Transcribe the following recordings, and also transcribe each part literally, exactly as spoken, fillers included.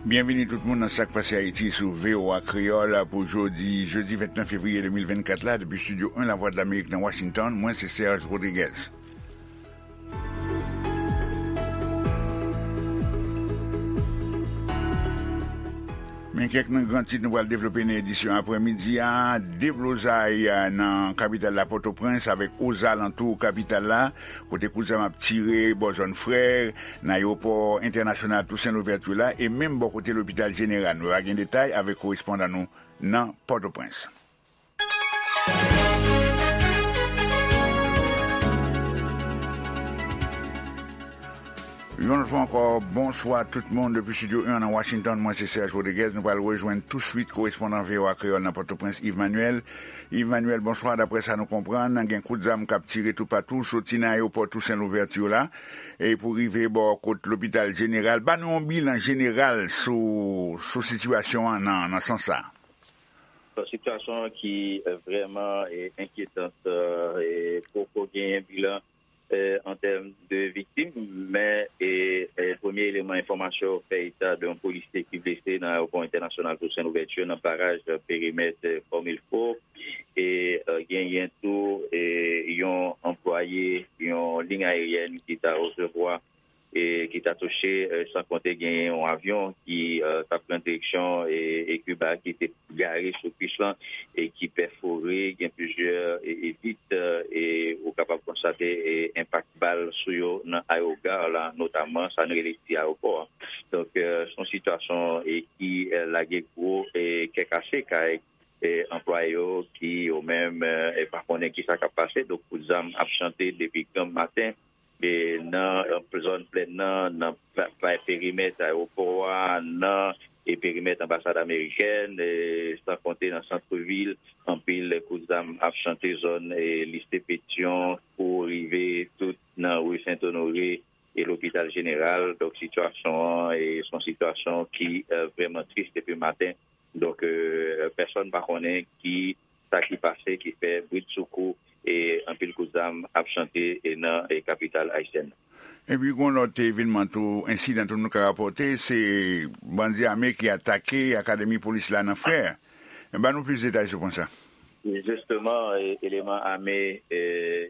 Byenvini tout moun nan Sa k Pase Ayiti sou V O A Kreyòl pou jodi, jedi vennèf fevriye de mil vennkat la, depi Estidyo en Lavwadlamerik nan Washington, mwen se Serge Rodriguez. Men kèk nan gran tit nou pral devlope nan edisyon aprèmidi a. Deblozay, a, nan kapital la, Pòtoprens, avèk ozalantou kapital la, kote kout zam ap tire bò zòn Frè, nan ayewopò entènasyonal Tousen Louvèti la, e menm bò kote lopital jeneral. Nou va gen detay avèk korespondan nou nan Pòtoprens. Yon lòt fwa ankò, bonswa tout moun depi Estidyo en nan Washington. Mwen se Serge Rodriguez. Nou pral rejwenn touswit korespondan V O A Kreyòl nan Pòtoprens, Yves Manuel. Yves Manuel, bonswa. Daprè sa nou konprann, gen kout zam k ap tire toupatou, soti nan ayewopò Tousen Louvèti la, e pou rive bò kot lopital jeneral. Ban nou yon bilan jeneral sou, sou sitiyasyon an nan, nan sans sa a. Bon, sitiyasyon an ki, eh, vrèman, eh, enkyetan, eh, e poko genyen bilan, eh, an tèm de viktim, men, eh, eh, premye eleman enfòmasyon fè eta de yon polisye ki blese nan ayewopò entènasyonal Tousen Louvèti nan baraj, eh, perimèt, eh, Fòmilfo, e, eh, genyen tou, eh, yon anplwaye yon liy ayeryèn ki ta resevwa e ki ta touche, eh, san konte genyen yon avyon ki, eh, t ap pran direksyon, e, e Kiba ki te gare sou pis lan e ki pèfore, gen plizyè, e, e vit, eh, e ou kapab konstate, e, enpak bal sou yo nan aewogare la, notamman sa n rele ti ayewopò a. Donk, eh, se yon sitiyasyon, e, ki, eh, lage gwo, e, kè kase kay, e, anplwaye yo ki yo menm, eh, e pa konnen kisa k ap pase. Donk, kout zam ap chante depi granm maten e nan, eh, zòn plèn nan, nan pa, pa, perimèt ayewopò a, nan, e perimèt anbasad amerikèn, e san konte nan santvil, anpil kout zam ap chante zòn, e lise Petyon pou rive tout nan ri Sent Onore e lopital jeneral. Donk, sitiyasyon an, e se yon sitiyasyon ki, eh, vrèman tris depi maten. Donk, eh, pèsonn pa konnen ki sa ki pase ki fè bridsoukou e anpil kout zam ap chante e nan, e kapital ayisyèn nan. Epi, gen yon lòt evènman tou, ensidan tou nou ka rapòte, se bandi ame ki atake akademi polis la nan Frè. Ban nou plis detay sou pwen sa. Jisteman, e, eleman ame, e,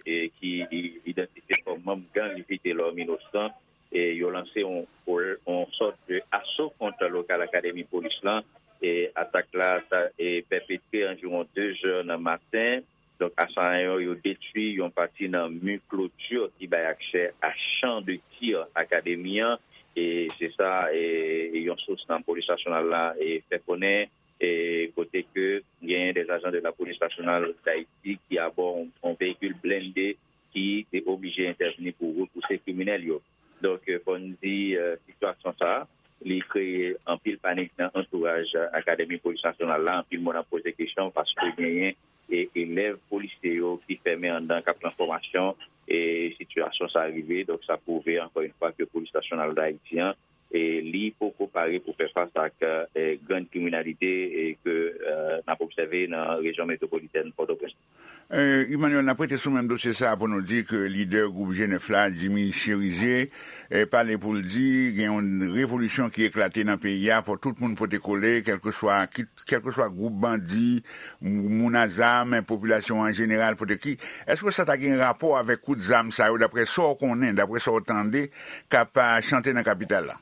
e ki i-, idantifye kòm manm gang Vitelòm Inosan, e yo lanse yon, yon sòt de aso kont lokal akademi polis lan. E atak la ta, e, pèpetre anviwon de zè nan maten. Donk, asayan yo, yo detwi yon pati nan mi kloti ki bay aksè a chan de tir akademi an. E se sa, e, yon sous nan polis nasyonal la, e, fè konnen, e, kote ke genyen des agents de la police nationale d'Haïti ki abò yon, yon veyikil blende ki te oblije entèvni pou repouse kriminèl yo. Donk, eh, fò n di, eh, sitiyasyon sa a, li kreye anpil panik nan antouraj Akademi Polis Nasyonal la. Anpil moun ap poze kesyon paske genyen, e, elèv polisye yo ki fèmen anndan k ap nan fòmasyon, e sitiyasyon sa a rive. Donk, sa pwouve, ankò yon fwa, ke Polis Nasyonal Dayiti an, e li poko pare pou fè fas ak, eh, grann kriminalite, e ke, eh, n ap obsève nan rejyon metwopolitèn Pòtoprens. Eh, Emmanuel, n ap rete sou menm dosye sa a pou nou di ke lidè gwoup G nèf la, Jimmy Chérizier, eh, pale pou l di gen yon revolisyon ki eklate nan peyi a, fò tout moun pote kole, kèlkeswa, kit-, kèlkeswa gwoup bandi, m-, moun a zam, popilasyon an jeneral, pote ki. Èske sa ta gen rapò avèk kout zam sa yo, daprè sa w konnen, daprè sa w tande, k ap, ah, chante nan kapital la?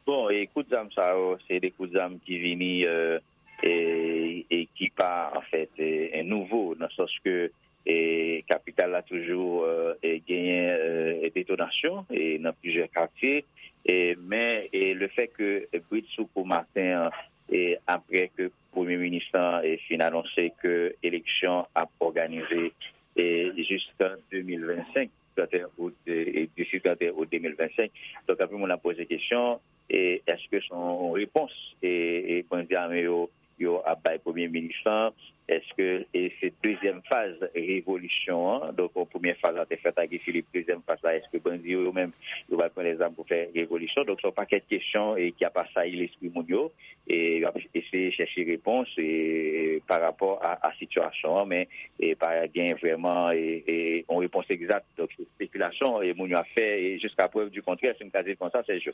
Bon, e kout zam sa yo, se de kout zam ki vini, eh, e, e ki pa, anfèt, e, e nouvo, nan sans ke, e, kapital la toujou, eh, e genyen, eh, detonasyon, e nan plizyè katye, e, men, e, le fè ke bridsoukou maten an, e, apre ke Premye Minis lan, e, fin anonse ke eleksyon ap òganize, e, jiska de mil vennsenk, trannteyen out, e, e, disi trannteyen out de mil vennsenk. Donk, anpil moun ap poze kesyon, e, èske se yon repons, e, e, bandi ame yo, yo ap bay Premye Minis lan, Èske e se dezyèm faz revolisyon an? Donk, yon premyè faz la te fèt ak Guy Philippe, dezyèm faz la, èske bandi yo, yo menm, yo pral pran lèzam pou fè revolisyon? Donk, se yon pakèt kesyon e ki ap asayi lespri moun yo, e y ap eseye chèche repons e, pa rapò a, a sitiyasyon an, men e pa gen vrèman e, e, yon repons egzat. Donk, se espekilasyon e moun yo ap fè, e jiska prèv di kontrè, si m ka di l konsa, Sergio.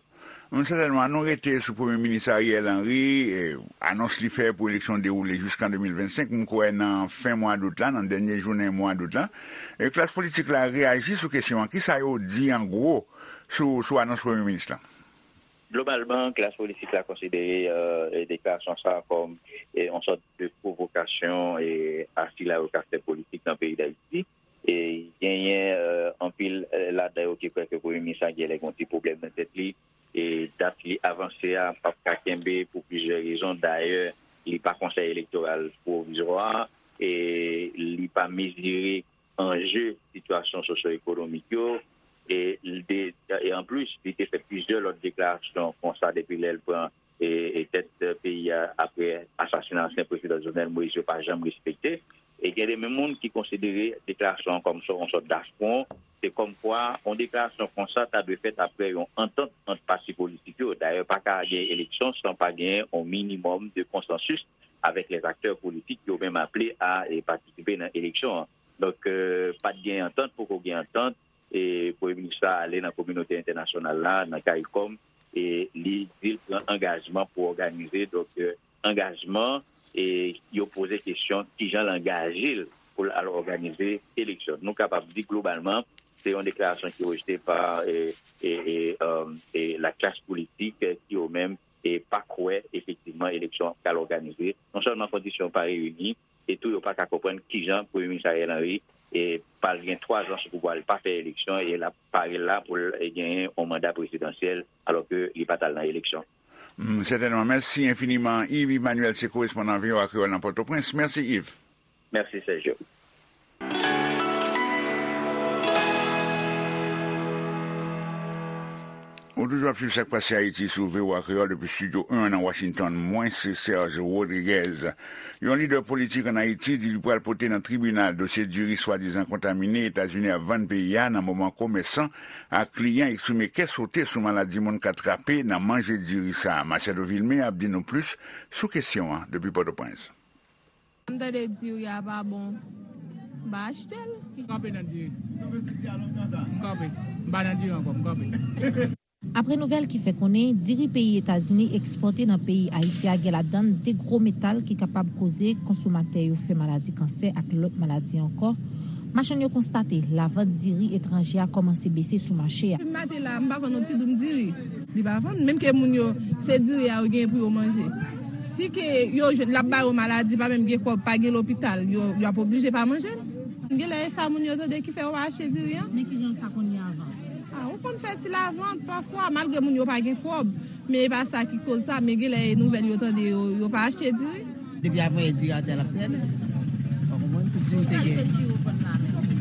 Sètènman, nou rete sou Premye Minis Ariel Henry, e, anons li fè pou eleksyon dewoule jiskan de mil vennsenk, m kwè nan fen mwa dout la, nan dènye jounen mwa dout la. E klas politik la reyaji sou kesyon an. Kisa yo di an gwo sou, sou anons Premye Minis la? Globalman, klas politik la konsidere e, e deklarasyon sa a kòm e, yon sòt de pwovokasyon e, a sila yo ka fè politik nan peyi Dayiti. E genyen e, anpil e, ladan yo ki kwè ke Premye Minis la genlè gen yon ti pwoblèm nan tèt li. E dat li avanse a p ap ka kenbe pou plizyè rezon. Dayè, li pa Konsèy Elektoral Pwovizwa, e li pa mezire anje sitiyasyon sosyo-ekonomik yo. E, li te, e anplis, li te fè plizyè lòt deklarasyon konsa depi lè l pran e, e tèt peyi a apre asasina ansyen prezidan Jovenel Moïse yo pa janm respekte. E gen de moun ki konsidere deklarasyon an kòm yon sòt dafwon. Se kòmkwa yon deklarasyon konsa ta dwe fèt apre yon antant ant pati politik yo. Dayè, pa ka gen eleksyon san pa gen yon minimòm de konsansis avèk lèzaktè politik yo menm aple a e patisipe nan eleksyon an. Donk, e, pa t gen antant, poko gen antant. E Premye Minis la ale nan kominote entènasyonal la, nan CARICOM, e li di l pran angajman pou òganize, donk, e, angajman, e yo poze kesyon kijan l angaje l pou l al òganize eleksyon. Nou kapab di globalman, se yon deklarasyon ki rejte pa e, e, e, e, e la klas politik, e, ki yo menm e pa kwè efektivman eleksyon an pral òganize. Non sèlman kondisyon pa reyini, e tou yo pa ka konprann kijan Premye Minis Ariel Henry e pral gen twa zan sou pouvwa, li pa fè eleksyon e l ap pare la pou l genyen yon manda prezidansyèl alòske li pa t al nan eleksyon. Hmm, sètènman. Mèsi enfiniman, Yves Emmanuel, se korespondan V O A Kreyòl nan Pòtoprens. Mèsi, Yves. Mèsi, Sergio. Ou toujou ap swiv Sa k Pase Ayiti sou V O A Kreyòl depi Estidyo en nan Washington. Mwen se Serge Rodriguez. Yon lidè politik ann Ayiti di li pral pote nan tribinal dosye diri swadizan kontamine Etazini ap vann peyi a nan moman komèsan ak kliyan eksprime kè sote sou maladi moun ka trape nan manje diri sa a. Machado Vilmé ap di nou plis sou kesyon an depi Pòtoprens. M tande diri a pa bon, m pa achte l. M kanpe nan diri. M kanpe. M pa nan diri ankò, m kanpe. Apre nouvèl ki fè konnen diri peyi Etazini ekspòte nan peyi Ayiti a gen ladan l de gwo metal ki kapab koze konsomatè yo fè maladi kansè ak lòt maladi ankò, machann yo konstate lavant diri etranje a kòmanse bese sou mache a. Depi maten la, m pa vann yon ti doum diri. Li pa vann. Menm ke moun yo, se diri a yo genyen pou yo manje. Si ke yo jwenn l ap ba yo maladi, pa menm gen kòb, pa gen lopital, yo, yo ap oblije pa manje l. Genlè e sa moun yo tande ki fè yo pa achte diri an. Men kijan sa konn ye avan? A, ou konn fè ti lavant pafwa, malgre moun yo pa gen kòb. Men e pa sa ki koz sa, men genlè e nouvèl yo tande, yo, yo pa achte diri. Depi avanyè diri atè a l ap trènen. Ou konprann? Tout diri te gen.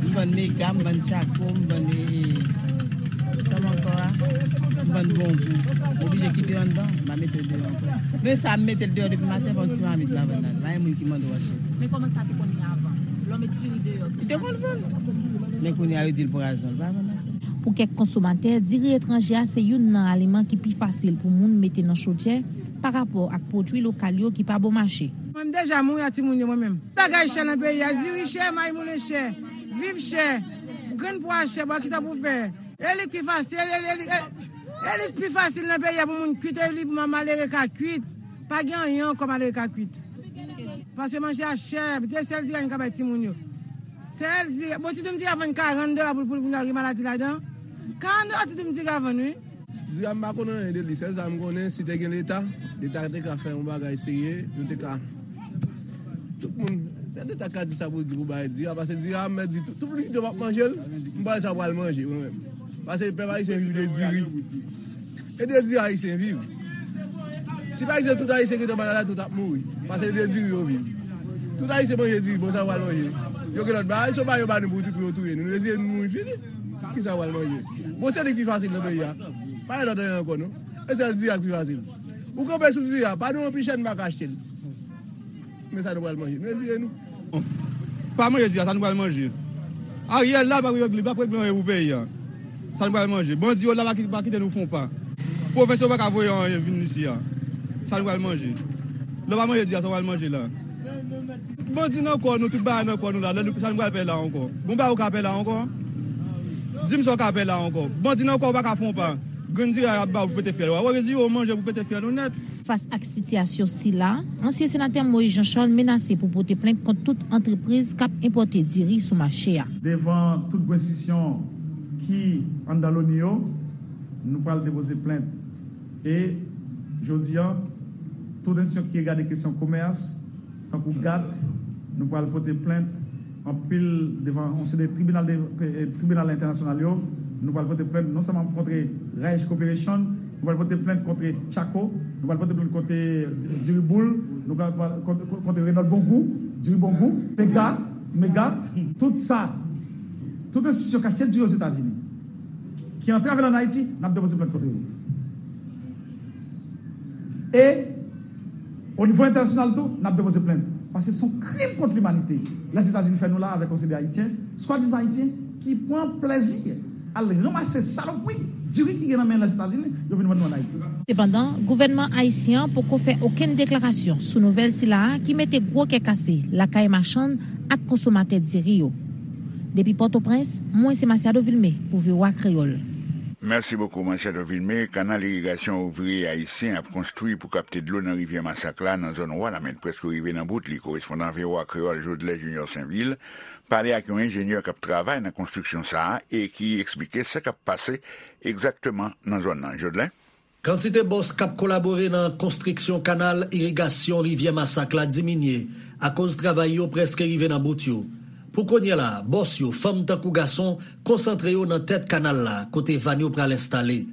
M vann mega, m vann tchako, m vann, e, e, kòman ankò a? M vann bonbon. M oblije kite yo anndan, m pa mete yo deyò ankò. Men sa, m mete l deyò depi maten, pa yon ti mamit m pa vann la. Pa gen moun ki mande w achte. Men kòman sa te konn ye avan? Lè w met diri deyò, li te konn vann. Men kounye a, yo di l pwazon, l pa vann ankò. Pou kèk konsomatè, diri etranje a se youn nan aliman ki pi fasil pou moun mete nan chodyè pa rapò ak pwodui lokal yo ki pa bon mache. Mwen, m deja mouri ak timoun yo, mwen menm. Bagay chè nan peyi a, diri chè, mayi moulen chè, viv chè, grenn pwa chè, bon, kisa pou fè? E li k pi fasil, e, e, e, e li k pi fasil nan peyi a pou moun kuit, e li pou malere ka kuit. Pa gen anyen ankò malere ka kuit. Paske manje a chè, se sèl diri a nou ka bay timoun yo. Sèl diri, bon, ti doum diri a vann karant dola pou, pou, pou nou al gen maladi ladan. Karant dola ti doum diri a vann, wi. Diri a m pa konn anyen de li, sèl sa m konnen, si te gen Leta, Leta te ka fè yon bagay serye, nou te ka, tout moun, se Leta ka di sa pou l di pou bay diri a, paske diri a, m mèt di, tout, tout moun ki di yo p ap manje l, m pa wè sa pral manje, mwen menm. Paske pèp ayisyen viv de diri. E de diri ayisyen viv. Si pa egzanp tout ayisyen ki te malad la, tout ap mouri. Paske de diri yo viv. Tout ayisyen manje diri, bon, sa pral manje. Yo gen lòt bagay, se pa yo ba nou pou, pou yo touye nou. Nou dezire nou mouri fini. Kisa pral manje? Bon, se li ki pi fasil nan peyi a. Pa gen lòt anyen ankò, non. E sèl diri a ki pi fasil. Ou kanpe sou diri a, pa nou anpil chèn pa ka achte l. Men sa nou pral manje. Nou retire nou. Pa manje di a, sa nou pral manje. Ariel la, l p ap regle, l p ap regle anyen pou peyi a. Sa nou pral manje. Bandi yo la, pa ki-, pa kite nou fon pa. Pwofesè yo pa ka voye anyen vin isi a. Sa nou pral manje. Lè w pa manje di a, sa w pral manje la. Bandi nan kò nou, tout bagay nan kò nou la. Lè nou, sa nou pral fè la ankò. Bon bagay ou ka fè la ankò. Di m sa w ka fè la ankò. Bandi nan kò ou pa ka fon pa. Grenn diri a y ap ba w pou pete fyèl ou a. Ou rezire w manje pou pete fyèl ou nèt. Fas ak sitiyasyon sila, ansyen senatè Moïse Jean Charles menase pou pote plent kont tout antrepriz k ap enpòte diri sou mache a. Devan tout grenn enstitisyon ki anndan loni yo, nou pral depoze plent. E jodi a, tout enstitisyon ki regade kesyon komès, tankou gat, nou pral pote plent anpil devan yon seri de tribinal de, eh, tribinal entènasyonal yo. Nou pral pote plent non sèlman kont Raich Corporation, nou pral pote plent kont Chaco, nou pral pote plent kont Diriboul, nou pral, pral kont, kont, kont Renault Bongou, Diri Bongou, Mega, Mega, tout sa, tout enstitisyon k achte diri Ozetazini, ki antre avè l ann Ayiti, n ap depoze plent kont yo. E o nivo entènasyonal tou, n ap depoze plent. Paske se yon krim kont limanite Lèzetazini fè nou la avèk yon seri de Ayisyen, swadizan Ayisyen, ki pran plèzi al ranmase salopri diri ki gen nan men Lèzetazini, yo vin vann nou ann Ayiti. Sepandan, gouvènman ayisyen an poko fè okenn deklarasyon sou nouvèl sila a ki mete gwo kè kase lakay machann ak konsomatè diri yo. Depi Pòtoprens, mwen se Masiado Vilmé pou V O A Kreyòl. Mèsi bokou, Masiado Vilmé. Kanal irigasyon ouvriye ayisyen ap konstwi pou kapte dlo nan rivyè Masak la, nan zòn Wanament, prèske rive nan bout li. Korespondan V O A Kreyòl, Jodlè Junior Sainvil, pale ak yon enjenyè k ap travay nan konstriksyon sa a e ki eksplike sa k ap pase egzakteman nan zòn nan. Jodlè? Kantite bòs k ap kolabore nan konstriksyon kanal irigasyon rivyè Masak la diminye akoz travay yo prèske rive nan bout yo. Pou kounye a la, bòs yo, fanm tankou gason, konsantre yo nan tèt kanal la, kote vàn yo pral enstale.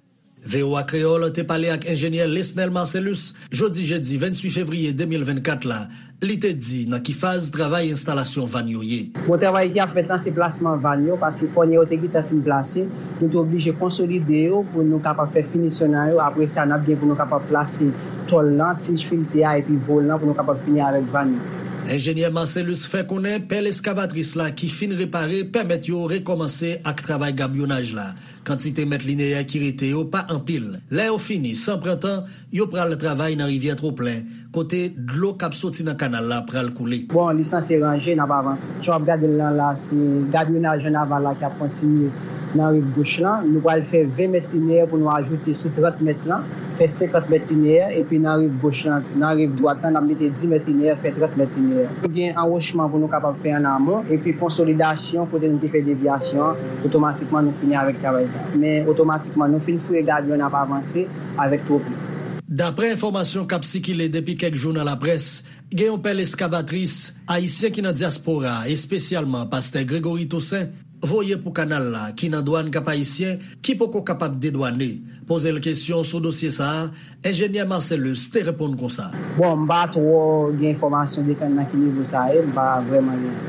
V O A Kreyòl te pale ak enjenyè Lesnel Marcelus jodi jedi venntuit fevriye de mil vennkat la, li te di nan ki faz travay enstalasyon vàn yo ye. Bon, travay ki ap fèt lan, se plasman vàn yo, paske kònè yo te gentan fin plase, nou te oblije konsolide yo pou nou kapab fè finisyon nan yo. Apre sa, n ap gen pou nou kapab plase tòl lan, tij filte a, epi volan pou nou kapab fini avèk vàn yo. Enjenyè Marcelus fè konnen pèl eskavatris la ki fin repare pèmèt yo rekòmanse ak travay gabyonaj la. Kantite mèt lineyè ki rete yo pa anpil. Lè yo fini, san pran tan, yo pral travay nan rivyè Twoplen, kote dlo k ap soti nan kanal la pral koule. Bon, li sanse ranje, n ap avanse. Jan w ap gade l lan la, se gabyonaj an aval la k ap kontinye nan riv goch lan. Nou pral fè ven mèt lineyè pou nou ajoute sou trant mèt lan, fè senkant mèt lineyè, epi nan riv goch lan, nan riv dwat lan, n ap mete dis mèt lineyè, fè trant mèt lineyè. Nou gen anwochman pou nou kapab fè an amon, epi konsolidasyon kote nou te fè devyasyon an, otomatikman nou fini avèk travay sa. Men otomatikman nou fin fouye gabyon, n ap avanse avèk Twoplen. Daprè enfòmasyon k ap sikile depi kèk jou nan laprès, gen yon pèl eskavatris ayisyen ki nan dyaspora, espesyalman pastè Gregory Toussaint, voye pou kanal la, ki nan dwàn Kap Ayisyen, ki poko kapab dedwane. Poze l kesyon sou dosye sa a, enjenyè Marcelus te reponn konsa. Bon, m pa twò gen enfòmasyon detann nan ki nivo sa ye, m pa vrèman gen.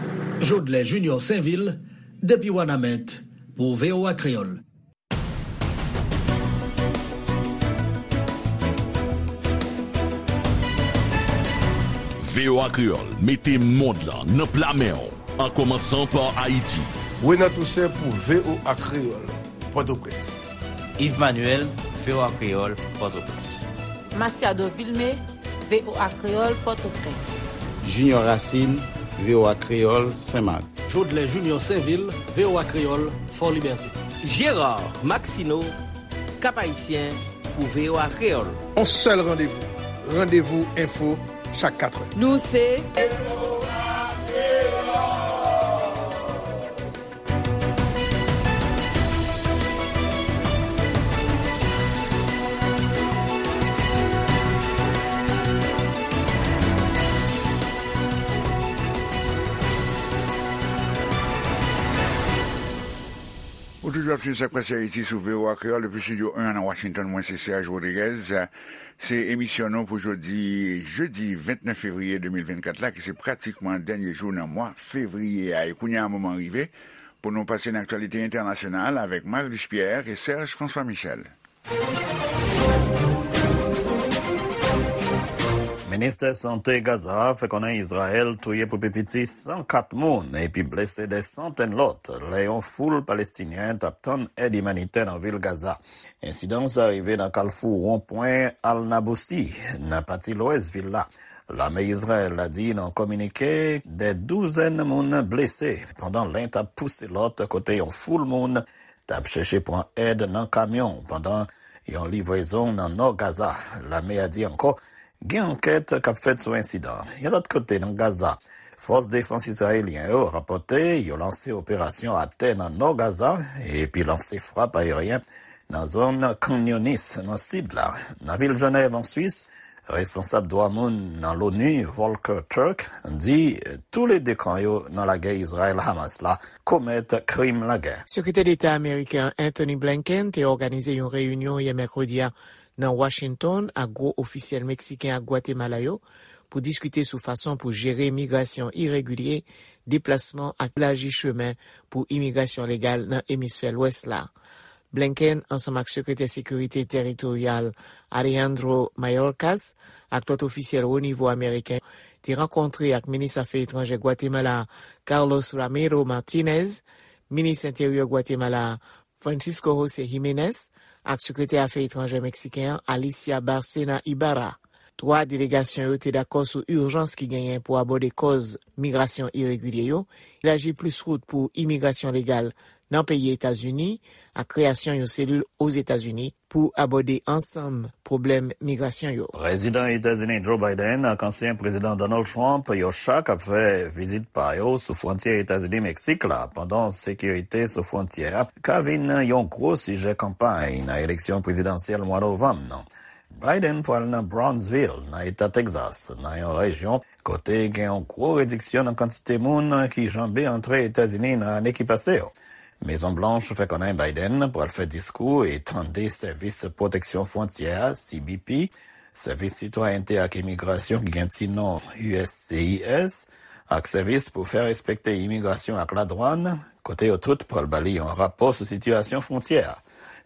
Jodlè Junior Sainvil, depi Wanament, pou V O A Kreyòl. V O A Kreyòl mete mond lan nan pla men w, an kòmansan pa Ayiti. Renan Toussaint pou V O A Kreyòl, Pòtoprens. Yves Manuel, V O A Kreyòl, Pòtoprens. Masiado Vilmé, V O A Kreyòl, Pòtoprens. Junior Racine, V O A Kreyòl, Senmak. Jodlè Junior Sainvil, V O A Kreyòl, Fòlibète. Gérard Maxineau, Kap Ayisyen, pou V O A Kreyòl. On sèl randevou, Randevou Enfo, chak katrè. Nou se Ou toujou ap swiv Sa k Pase Ayiti sou V O A Kreyòl depi estidyo en an nan Washington. Mwen se Serge Rodriguez. Se emisyon nou pou jodi, jedi vennèf fevriye de mil vennkat la, ki se pratikman dènye jou nan mwa fevriye a. E kounye a, moman rive pou nou pase nan aktyalite entènasyonal avèk Marilus Pierre e Serge François Michel. Ministè Sante Gaza a fè konnen Izrayèl touye pou pi piti san kat moun epi blese dè santèn lòt lè yon foul Palestinyen t ap tann èd imanitè nan vil Gaza. Ensidan sa rive nan kalfou wonpwen Al Nabousi, nan pati lwès vil la. Lame Izrayèl la di nan kominike dè douzèn moun blese pandan len t ap pouse lòt kote yon foul moun t ap chèche pran èd nan kamyon pandan yon livrezon nan nò Gaza. Lame a di ankò gen ankèt k ap fèt sou ensidan an. Yon lòt kote nan Gaza, fòs defans izrayelyen yo rapòte yo lanse operasyon atè nan nò Gaza epi lanse frap ayeryen nan zòn Khan Younis nan sid la. Nan vil Jenèv an Swis, responsab dwa moun nan l'ONU, Volker Turk, di toulede kan yo nan lagè Izrayèl-Hamas la komèt krim lagè. Sekretè Deta ameriken an Anthony Blinken te òganize yon reyinyon yè mèkredi a nan Washington ak gwo ofisyèl meksiken ak Gwatemala yo pou diskite sou fason pou jere migrasyon iregilye, deplasman ak elaji chemen pou imigrasyon legal nan emisfè lwès la. Blinken, ansanm ak Sekretè Sekirite Teritoryal Alejandro Mayorkas ak lòt ofisyèl wo nivo ameriken, te rankontre ak minis afè etranjè Gwatemala Carlos Ramiro Martinez, minis enteryè Gwatemala Francisco José Jiménez ak sekretè afè etranjè meksiken an Alicia Bárcena Ibarra. Twa delegasyon yo te dakò sou ijans ki genyen pou abòde kòz migrasyon iregilye yo, elaji plis wout pou imigrasyon legal nan peyi Etazini, ak kreyasyon yon selil Ozetazini pou abòde ansanm pwoblèm migrasyon yo. Prezidan Etazini Joe Biden ak ansyen prezidan Donald Trump, yo chak ap fè vizit pa yo sou fwontyè Etazini-Meksik la, pandan sekirite sou fwontyè a ka vin yon gwo sijè kanpay nan eleksyon prezidansyèl mwa novanm nan. Biden pral nan Brownsville, nan eta Texas, nan yon rejyon kote gen yon gwo rediksyon nan kantite moun ki janbe antre Etazini nan ane ki pase yo. Mezon Blanch fè konnen Biden pral fè diskou e tande Sèvis Pwoteksyon Fwontyè a, C B P, Sèvis Sitwayènte ak Imigrasyon ki gen ti non U S C I S, ak Sèvis pou fè respekte imigrasyon ak ladwàn, kote yo tout pral ba li yon rapò sou sitiyasyon fwontyè a.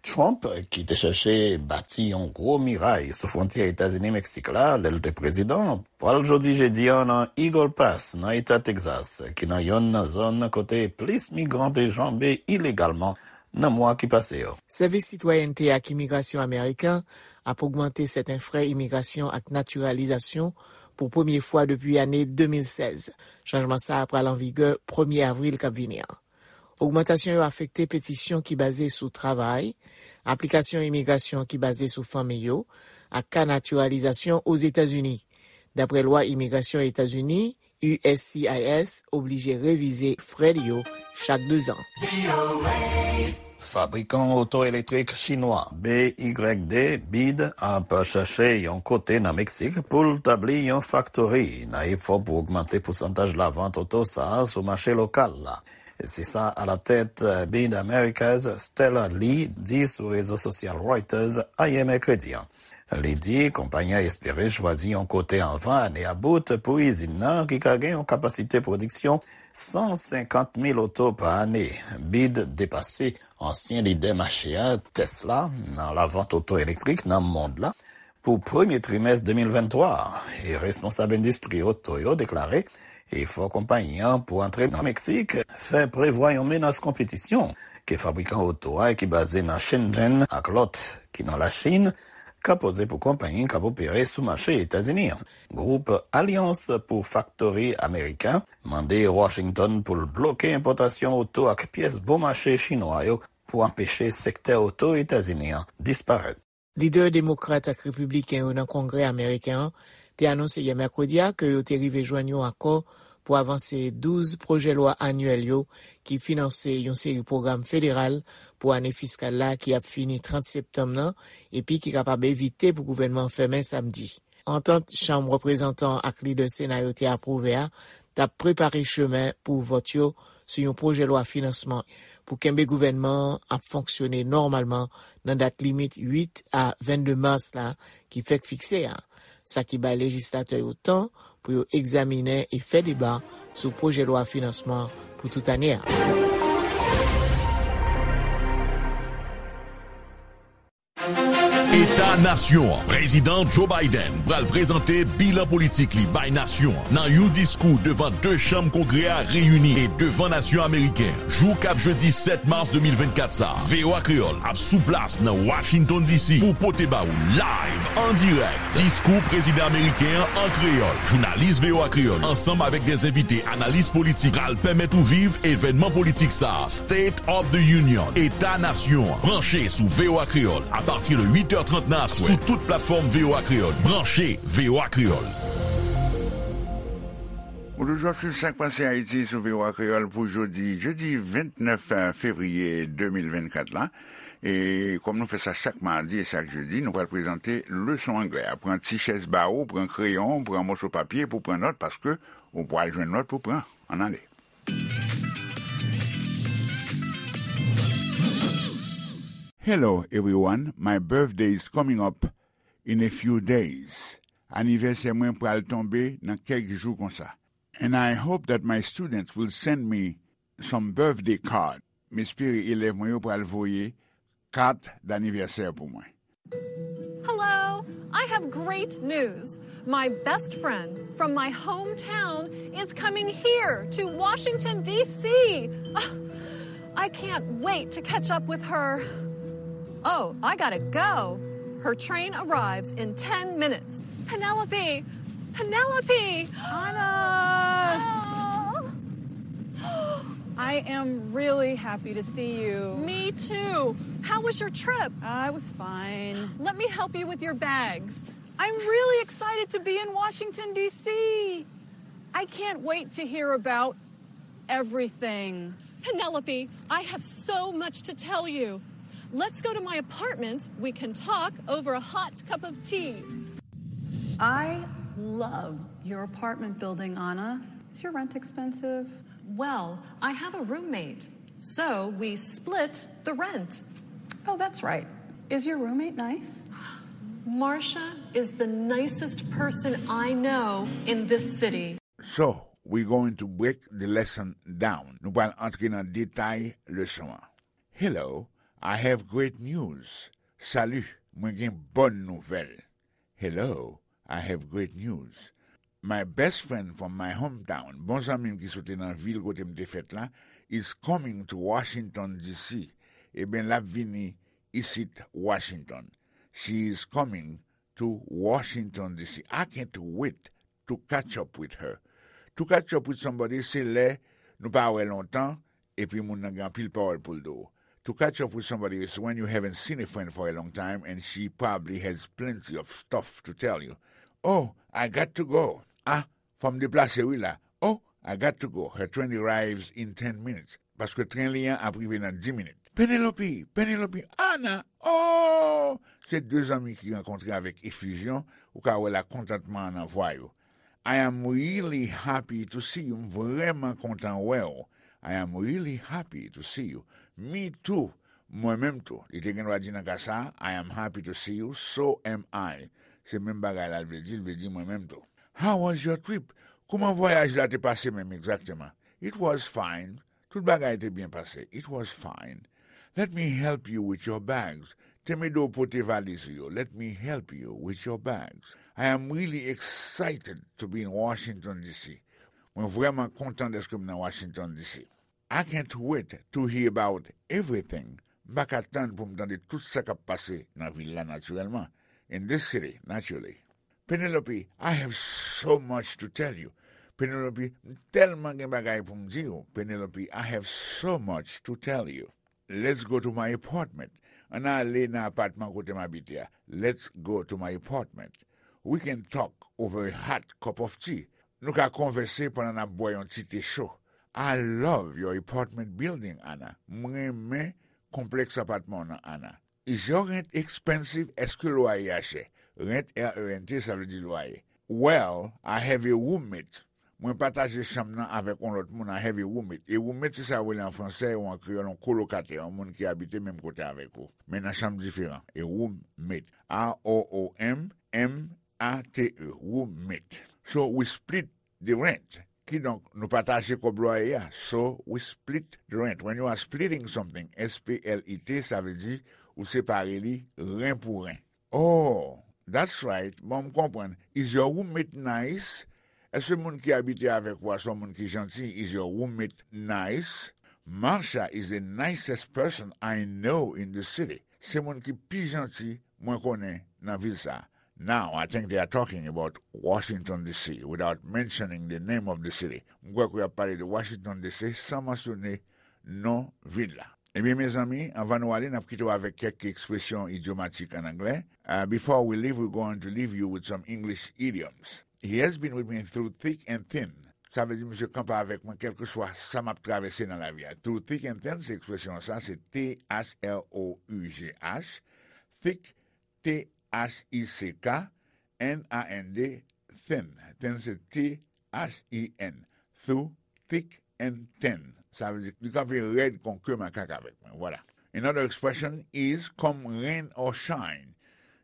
Trump, ki te chèche bati yon gwo miray sou fwontyè Etazini-Meksik la lè l te prezidan, pral jodi jedi a nan Eagle Pass, nan eta Texas, ki nan yonn nan zòn kote plis migran te janbe ilegalman nan mwa ki pase yo. Sèvis Sitwayènte ak Imigrasyon Ameriken ap ogmante sèten frè imigrasyon ak natiralizasyon pou premye fwa depi ane de mil sèz. Chanjman sa a pral an vigè premye avril k ap vini an. Ogmantasyon yo afekte petisyon ki baze sou travay, aplikasyon imigrasyon ki baze sou fanmi yo, ak ka natiralizasyon Ozetazini. Dapre lwa imigrasyon Etazini, U S C I S oblije revize frè li yo chak dezan. Fabrikan oto elektrik chinwa B Y D, BYD, ap chache yon kote nan Meksik pou l tabli yon faktori nan efò pou ogmante pousantaj lavant oto sa a sou mache lokal la. Se sa alatèt BYD Americas, Stella Li, di sou rezo sosyal Reuters ayè mèkredi an. Li di konpayi an espere chwazi yon kote anvan ane a bout pou izin nan ki ka gen yon kapasite pwodiksyon san senkant mil oto pa ane. BYD depase ansyen lidè mache a, Tesla, nan lavant oto elektrik nan mond la pou premye trimès de mil venntwa a, e responsab endistri oto yo deklare efò konpayi an pou antre nan Meksik fè prevwa yon menas konpetisyon ke fabrikan oto a ki baze nan Shenzhen ak lòt ki nan Lachin ka poze pou konpayi k ap opere sou mache Etazini an. Gwoup Alyans pou Faktori Ameriken mande Washington pou l bloke enpòtasyon oto ak pyès bon mache chinwa yo pou anpeche sektè oto Etazini an disparèt. Lidè demokrat ak repibliken yo nan Kongrè ameriken an te anonse yè mèkredi a ke yo te rive jwenn yon akò pou avanse douz pwojè lwa anyèl yo ki finanse yon seri pwogram federal pou ane fiskal la ki ap fini trant septanm nan epi ki kapab evite pou gouvènman an fèmen samdi. Antant Chanm Reprezantan ak lidè Sena yo te apwouve a t ap prepare chemen pou vòt yo sou yon pwojè lwa finansman pou kenbe gouvènman an ap fonksyone nòmalman nan dat limit uit a vennde mas la ki fèk fikse a, sa ki bay lejislatè yo tan pou yo egzaminen e fè deba sou pwojè lwa finansman pou tout ane a. Eta Nasyon an. Prezidan Joe Biden pral prezante bilan politik li bay nasyon an nan yon diskou devan de chanm Kongrè a reyini e devan nasyon ameriken an. Jou k ap jedi sèt mas de mil vennkat sa a, V O A Kreyòl ap sou plas nan Washington D C pou pote ba ou live, an dirèk, diskou prezidan ameriken an an kreyòl. Jounalis V O A Kreyòl, ansanm avèk de envite analis politik, pral pèmèt ou viv evènman politik sa a, State of the Union, Eta Nasyon an. Branche sou V O A Kreyòl apati de uit è trant nan aswè sou tout platfòm V O A Kreyòl. Branche V O A Kreyòl. Ou toujou ap swiv Sak Pase Ayiti sou V O A Kreyòl pou jodi, jedi vennèf fevriye de mil vennkat la. E kòm nou fè sa chak madi e chak jedi, nou pral prezante leson anglè a. Pran ti chèz ba ou, pran kreyon, pran moso papye pou pran nòt, paske ou pral jwenn nòt pou pran. Ann ale. Hello, everyone. My birthday is coming up in a few days. Anivèsè mwen pral tonbe nan kèk jou konsa. And I hope that my students will send me some birthday card. M espere elèv mwen yo pral voye kat danivèsè pou mwen. Hello, I have great news. My best friend from my hometown is coming here to Washington, D C. Ah, I can't wait to catch up with her. Oh, I gotta go. Her train arrives in ten minutes. Penelope! Penelope! Anna! Oh. I am really happy to see you. Me too. How was your trip? I was fine. Let me help you with your bags. I'm really excited to be in Washington, D C. I can't wait to hear about everything. Penelope, I have so much to tell you. Let's go to my apartment. We can talk over a hot cup of tea. I love your apartment building, Anna. Is your rent expensive? Well, I have a roommate, so we split the rent. Oh, that's right. Is your roommate nice? Marcia is the nicest person I know in this city. So, we going to break the lesson down. Nou pral antre nan detay leson an. Hello, I have great news. Salut, mwen gen bòn nouvèl. Hello, I have great news. My best friend from my hometown, bon zanmi m ki soti nan vil kote m te fèt la, is coming to Washington, D C. Eben, l ap vini isit Washington. She is coming to Washington, D C. I can't wait to catch up with her. To catch up with somebody, se lè nou pa wè lontan, epi moun nan gen anpil pawòl pou l di w. To catch up with somebody is when you haven't seen a friend for a long time and she probably has plenty of stuff to tell you. Oh, I got to go. Ah, fò m deplase wi la. Oh, I got to go. Her train arrives in ten minutes. Paske tren li an ap rive nan dis minit. Penelope, Penelope, Anna, oh! Se de zanmi ki rankontre avèk efizyon, ou ka wè lakontantman an nan vwa yo. I am really happy to see you. M vrèman kontan wè w. I am really happy to see you. Me too. Mwen menm tou. Li te gen dwa di nan ka sa a, I am happy to see you, so am I. Se menm bagay la l vle di, l vle di mwen menm tou. How was your trip? Kòman vwayaj la te pase menm egzakteman? It was fine. Tout bagay te byen pase. It was fine. Let me help you with your bags. Tèm ede w pote valiz ou yo. Let me help you with your bags. I am really excited to be in Washington, D C. Mwen vrèman kontan dèske m nan Washington, D C. I can't wait to hear about everything. M pa ka tann pou m tande tout sa k ap pase nan vil la, natirèlman. In this city, naturally. Penelope, I have so much to tell you. Penelope, m tèlman gen bagay pou m di w. Penelope, I have so much to tell you. Let's go to my apartment. Ann ale nan apatman kote m abite a. Let's go to my apartment. We can talk over a hot cup of tea. Nou ka konvèse pandan n ap bwè yon ti te cho. I love your apartment building, Anna. M renmen konplèks apatman w nan, Anna. Is your rent expensive? Èske lwaye a chè? Rent, R E N T, sa vle di lwaye. Well, I have a roommate. Mwen pataje chanm nan avèk yon lòt moun, I have a roommate. E roommate, se sa yo rele an fransè ou an kreyòl yon kolokatè, yon moun ki abite menm kote avèk ou, men nan chanm diferan. A roommate. R O O M M A T E, roommate. So we split the rent. Kidonk, nou pataje kòb lwaye a. So we split the rent. When you are splitting something, S P L I T, sa vle di ou separe li ren pou ren. Oh, that's right. Bon, m konprann. Is your roommate nice? Èske moun ki abite avèk ou a se yon moun ki janti? Is your roommate nice? Marsha is the nicest person I know in the city. Se moun ki pi janti mwen konnen nan vil sa a. Now, I think they are talking about Washington, D C, without mentioning the name of the city. M kwè ke y ap pale de Washington, D C, san mansyone non vil la. Ebyen, mezanmi, anvan nou ale, n ap kite w avèk kèk ekspresyon idyomatik ann anglè. Uh, before we leave, we're going to leave you with some English idioms. He has been with me through thick and thin. Sa vle di, misye kanpe avèk mwen, kèlkeswa sa m ap travèse nan lavi a. Through thick and thin, se ekspresyon sa, se T H R O U G H. Thick, T H I C K, N A N D, thin. Thin se T H I N. Through thick and thin. Sa vle di, li kanpe rèd kon ke makak avèk mwen. Vwala. Another expression is come rain or shine.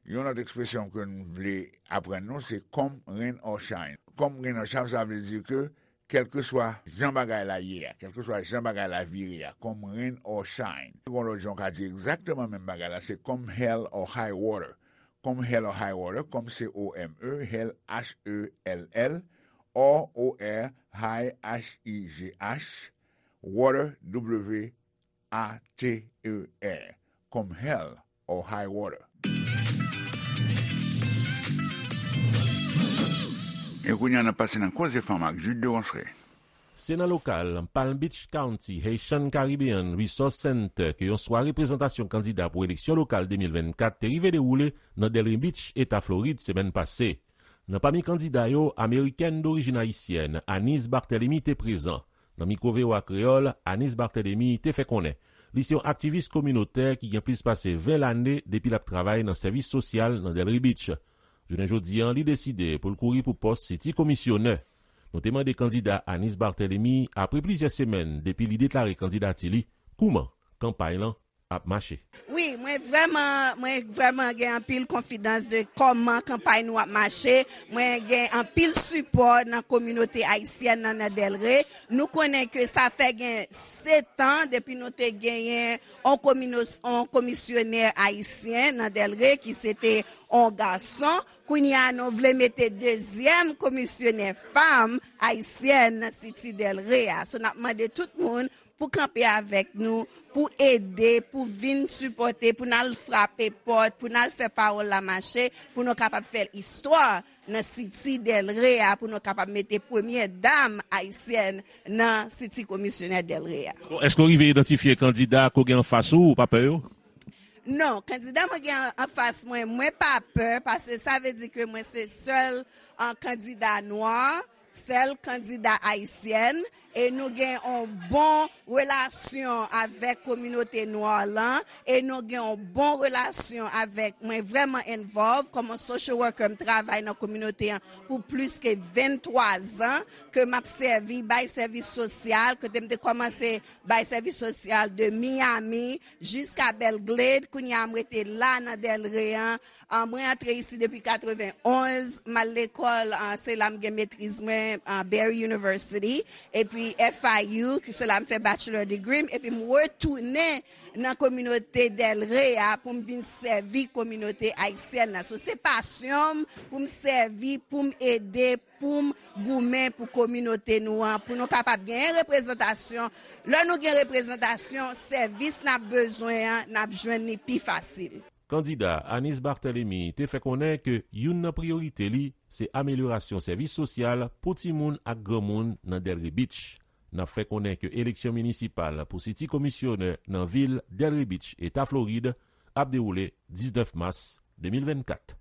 Yon lòt ekspresyon ke n vle aprann nou, se come rain or shine. Come rain or shine, sa vle di ke kèlkeswa jan bagay la ye a, kèlkeswa jan bagay la vire a, come rain or shine. Gon lòt jan w ka di egzakteman menm bagay la, se come hell or high water. Come hell or high water, come, C O M E, hell, H E L L, or, O R, high, H I G H, water, W A T E R. Come hell or high water. E kounye a, n ap pase nan Koze Fanm ak Jude de Ronceray. Se nan lokal Palm Beach County Haitian Caribbean Resource Center ke yon sware prezantasyon kandida pou eleksyon lokal de mil vennkat te rive dewoule nan Delray Beach, Eta Florid, semèn pase. Nan pami kandida yo, amerikèn dorijin ayisyèn Anise Barthélemy te prezan. Nan mikwo V O A Kreyòl, Anise Barthélemy te fè konnen li se yon aktivis kominotè ki gen plis pase ven lane depi l ap travay nan sèvis sosyal nan Delray Beach. Jounen jodi a, li deside pou l kouri pou pòs City Komisyonè. Nou te mande kandida Anise Barthélemy, apre plizyè semèn depi li deklare kandidati li, kouman kanpay lan ap mache. Wi, mwen vrèman, mwen vrèman gen anpil konfidans de kòman kanpay nou ap mache. Mwen gen anpil sipò nan kominote ayisyèn nan, nan Delray. Nou konnen ke sa fè gen sèt an depi nou te genyen on komino-, on komisyonè ayisyen nan Delray ki se te on gason. Kounye a, nou vle mete dezyèm komisyonè fanm ayisyèn nan City Delray a. So, n ap mande tout moun pou kanpe avèk nou, pou ede, pou vin sipòte, pou n al frape pòt, pou n al fè pawòl la mache, pou nou kapab fè istwa nan City Delray a, pou nou kapab mete premyè dam ayisyèn nan City Komisyonè Delray a. Bon, èske w rive idantifye kandida ke w gen anfas ou, ou pa pè yo? Non, kandida mwen gen anfas mwen, mwen pa pè, paske sa vle di ke mwen se sèl, ah, kandida nwa, sèl kandida ayisyèn, e nou gen yon bon relasyon avèk kominote nwa lan, e nou gen yon bon relasyon avèk, mwen vrèman involve kòm yon social worker, m travay nan kominote an pou plis ke venntwa zan, ke m ap sèvi, bay sèvis sosyal, kote m te kòmanse bay sèvis sosyal de Miami jiska Belgrade, kounye a m rete la nan Delray an. Ah, mwen antre isi depi katrevenn onz, m al lekòl, ah, se la m gen metriz mwen, ah, Barry University, epi F I U, ki se la m fè bachelor degree m, epi m retounen nan kominote Delray a pou m vin sèvi kominote ayisyèn nan. So, se pasyon m pou m sèvi, pou m ede, pou m goumen pou kominote nou an, pou nou kapab genyen reprezantasyon. Lè nou gen reprezantasyon, sèvis n ap bezwen an, n ap jwenn li pi fasil. Kandida Anise Barthélemy te fè konnen ke youn nan priyorite li se amelyorasyon sèvis sosyal pou timoun ak granmoun nan Delray Beach. N ap fè konnen ke eleksyon minisipal pou City Komisyonè nan vil Delray Beach, Eta Florid, ap dewoule diznèf mas de mil vennkat.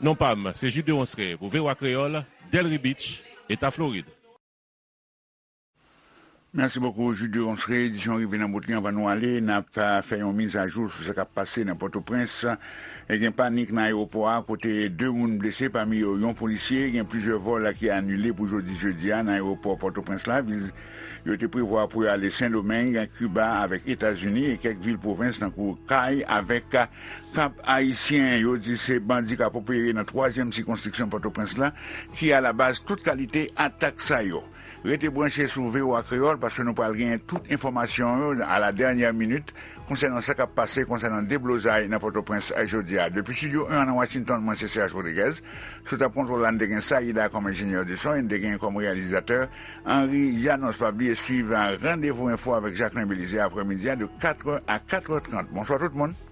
Non pa m, se Jude Deronceray pou V O A Kreyòl, Delray Beach, Eta Florid. Mèsi bokou, Jude Deronceray. Edisyon rive nan bout li. Anvan nou ale, n ap, ah, fè yon mizajou sou sa k ap pase nan Pòtoprens. E gen panik nan ayewopò a, kote de moun blese, pami yo yon polisye. Gen plizyè vòl ki anile pou jodi jedi a nan ayewopò Pòtoprens la. Vil yo te prevwa pou yo ale Sendomeng, Kiba avèk Etazini e kèk vil pwovens tankou Kay avèk Kap Ayisyen. Yo di se bandi k ap opere nan twazyèm sikonstriksyon Pòtoprens la ki alabaz tout kalite atak sa yo. Rete branche sou V O A Kreyòl, paske nou pral genyen tout enfòmasyon yo à la dernière minute konsènan sa k ap pase konsènan deblozay nan Pòtoprens jodi a. Depi Estidyo en an nan Washington, mwen se Serge Rodriguez. Sou tab kontwòl la, n te gen Saïda kòm enjenyè de son e n te gen kòm reyalizatè Henri Janos. Pa bliye swiv Randevou Enfo avèk Jacquelin Belizaire aprèmidi a de kat è a kat è trant. Bonswa tout moun.